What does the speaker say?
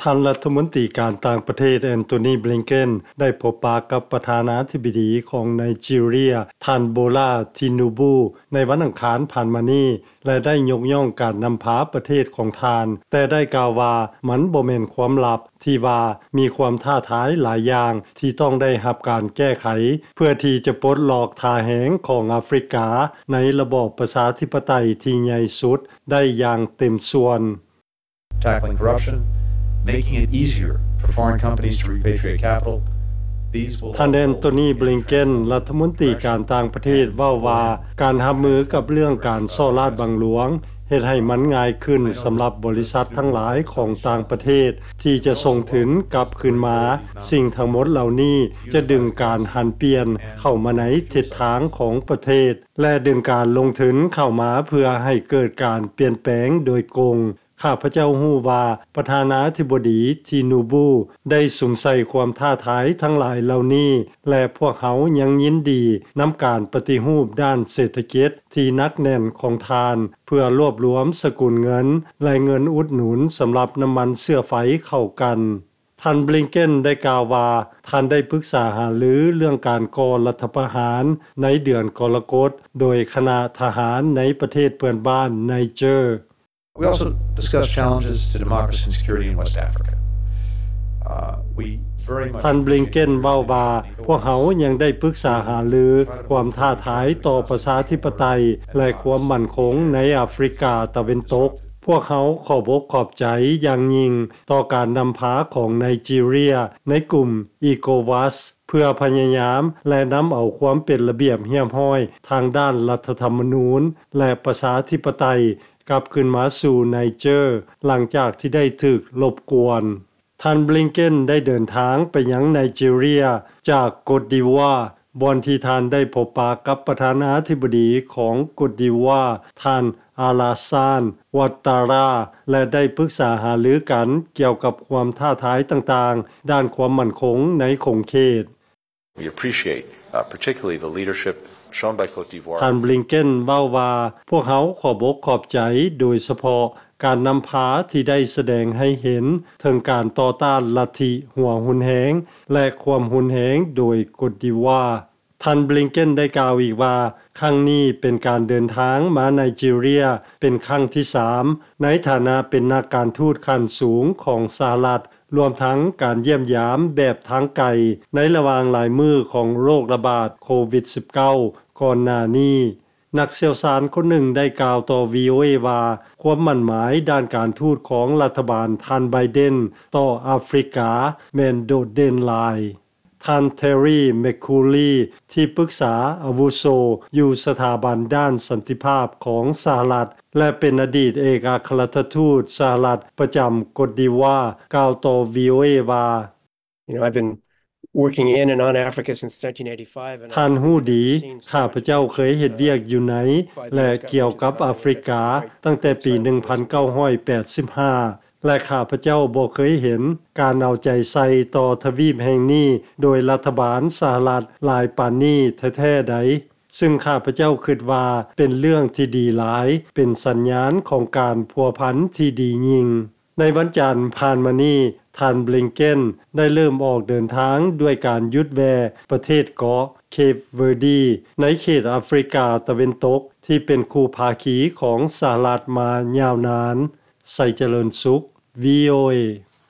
ທ່ານລັດຖະມົນຕີການຕ່າງປະເທດ ແອນໂທນີ ບລິງເກັນ ໄດ້ພົບປະກັບປະທານາທິບໍດີຂອງໄນຈີເຣຍ ທ່ານ ໂບລາ ທິນູບູ ໃນວັນອັງຄານຜ່ານມານີ້ ແລະ ໄດ້ຍົກຍ້ອງການນຳພາປະເທດຂອງທ່ານ, ແຕ່ໄດ້ກ່າວວ່າມັນບໍ່ແມ່ນຄວາມລັບ ທີ່ວ່າມີຄວາມທ້າທາຍຫຼາຍຢ່າງທີ່ຕ້ອງໄດ້ຮັບການແກ້ໄຂ ເພື່ອທີ່ຈະປົດລັອກທ່າແຮງຂອງອາຟຣິກາໃນລະບອບປະຊາທິປະໄຕທີ່ໃຫຍ່ສຸດໄດ້ຢ່າງເຕັມສ່ວນ. Tackling corruption, making it easier for foreign companies to repatriate capital. These will ທ່ານແອນໂທນີ ບລິງເກັນ ລັດຖະມົນຕີການຕ່າງປະເທດ ເວົ້າວ່າ ການຮັບມືກັບເລື່ອງການສໍ້ລາດບັງຫຼວງ ເຮັດໃຫ້ມັນງ່າຍຂຶ້ນສຳລັບບໍລິສັດທັງຫຼາຍຂອງຕ່າງປະເທດ ທີ່ຈະສົ່ງທຶນກັບຄືນມາ. ສິ່ງທັງໝົດເຫຼົ່ານີ້ຈະດຶງການຫັນປ່ຽນເຂົ້າມາໃນທິດທາງຂອງປະເທດ ແລະ ດຶງການລົງທຶນເຂົ້າມາເພື່ອໃຫ້ເກີດການປ່ຽນແປງໂດຍກົງ. ຂ້າພະເຈົ້າຮູ້ວ່າປະທານາທິບໍດີ ທີນູບູ ໄດ້ສຸມໃສ່ຄວາມທ້າທາຍທັງຫຼາຍເຫຼົ່ານີ້ ແລະ ພວກເຮົາຍັງຍິນດີນຳການປະຕິຮູບດ້ານເສດຖະກິດທີ່ໜັກແໜ້ນຂອງທ່ານ ເພື່ອລວບລວມສະກຸນເງິນ ແລະ ເງິນອຸດໜູນສຳລັບນ້ຳມັນເຊື້ອໄຟເຂົ້າກັນ. ທ່ານ ບລິງເກັນ ໄດ້ກ່າວວ່າ ທ່ານໄດ້ປຶກສາຫາລືເລື່ອງການກໍ່ລັດຖະປະຫານໃນເດືອນກໍລະກົດ ໂດຍຄະນະທະຫານໃນປະເທດເພື່ອນບ້ານໄນເຈີ. We also discussed challenges to democracy and security in West Africa. Uh, we very much ທ່ານ ບລິງເກັນ ເວົ້າວ່າ ພວກເຮົາຍັງໄດ້ປຶກສາຫາລືຄວາມທ້າທາຍຕໍ່ປະຊາທິປະໄຕ ແລະ ຄວາມໝັ້ນຄົງໃນອາຟຣິກາຕາເວັນຕົກ. ພວກເຮົາຂອບອົກຂອບໃຈຢ່າງຍິ່ງຕໍ່ການນຳພາຂອງໄນຈີເຣຍໃນກຸ່ມ ອີໂກວັສ ເພື່ອພະຍາຍາມ ແລະ ນຳເອົາຄວາມເປັນລະບຽບຮຽບຮ້ອຍທາງດ້ານລັດຖະທຳມະນູນ ແລະ ປະຊາທິປະໄຕ ກັບຄືນມາສູ່ໄນເຈີ ຫຼັງຈາກທີ່ໄດ້ຖືກລົບກວນ. ທ່ານ ບລິງເກັນ ໄດ້ເດີນທາງໄປຍັງໄນຈີເຣຍຈາກໂກດດີວາ ບ່ອນທີ່ທ່ານໄດ້ພົບປະກັບປະທານາທິບໍດີຂອງໂກດດີວາ ທ່ານ ອາລາຊານ ວັດຕາຣາ ແລະ ໄດ້ປຶກສາຫາລືກັນກ່ຽວກັບຄວາມທ້າທາຍຕ່າງໆ ດ້ານຄວາມໝັ້ນຄົງໃນຂົງເຂດ. We appreciate, uh, particularly the leadership shown by Côte d'Ivoire. ທ່ານ ບລິງເກັນ ເວົ້າວ່າ ພວກເຮົາຂອບອົກຂອບໃຈ ໂດຍສະເພາະການນຳພາທີ່ໄດ້ສະແດງໃຫ້ເຫັນເຖິງການຕໍ່ຕ້ານລັດທິຫົວຮຸນແຮງ ແລະ ຄວາມຮຸນແຮງໂດຍໂກດດີວາ. ທ່ານ ບລິງເກັນ ໄດ້ກ່າວອີກວ່າ ຄັ້ງນີ້ເປັນການເດີນທາງມາໄນຈີເຣຍເປັນຄັ້ງທີສາມ ໃນຖານະເປັນນັກການທູດຂັ້ນສູງຂອງສະຫະລັດ ລວມທັງການຢ້ຽມຢາມແບບທາງໄກ ໃນລະຫວ່າງຫຼາຍມື້ຂອງໂລກລະບາດໂຄວິດສິບເກົ້າ ກ່ອນໜ້ານີ້. ນັກຊ່ຽວຊານຄົນໜຶ່ງໄດ້ກ່າວຕໍ່ ວີໂອເອ ວ່າ ຄວາມໝັ້ນໝາຍດ້ານການທູດຂອງລັດຖະບານທ່ານ ໄບເດັນ ຕໍ່ອາຟຣິກາແມ່ນໂດດເດັ່ນຫຼາຍ. ທ່ານ ເທຣີ ແມັກຄູລີ ທີ່ປຶກສາອາວຸໂສຢູ່ສະຖາບັນດ້ານສັນຕິພາບຂອງສະຫະລັດ ແລະ ເປັນອະດີດເອກອັກຄະລັດຖະທູດສະຫະລັດປະຈຳໂກດດີວາ ກ່າວຕໍ່ ວີໂອເອ ວ່າ You know, I've been working in and on Africa since nineteen eighty-five, and ທ່ານຮູ້ດີ I've never seen so ຂ້າພະເຈົ້າເຄີຍເຮັດວຽກຢູ່ໃນ ແລະ ກ່ຽວກັບອາຟຣິກາ ຕັ້ງແຕ່ປີໜຶ່ງພັນເກົ້າຮ້ອຍແປດສິບຫ້າ ແລະ ຂ້າພະເຈົ້າບໍ່ເຄີຍເຫັນການເອົາໃຈໃສ່ຕໍ່ທະວີບແຫ່ງນີ້ໂດຍລັດຖະບານສະຫະລັດຫຼາຍປານນີ້ແທ້ໆໃດ, ຊຶ່ງຂ້າພະເຈົ້າຄິດວ່າເປັນເລື່ອງທີ່ດີຫຼາຍ, ເປັນສັນຍານຂອງການພົວພັນທີ່ດີຍິ່ງ. ໃນວັນຈັນຜ່ານມານີ້, ທ່ານ ບລິງເກັນ ໄດ້ເລີ່ມອອກເດີນທາງດ້ວຍການຢຸດແວ່ປະເທດເກາະເຄບເວີດີ ໃນເຂດອາຟຣິກາຕາເວັນຕົກ ທີ່ເປັນຄູ່ພາຄີຂອງສະຫະລັດມາຍາວນານ. ໄຊຈະເລີນສຸກ ວີໂອເອ.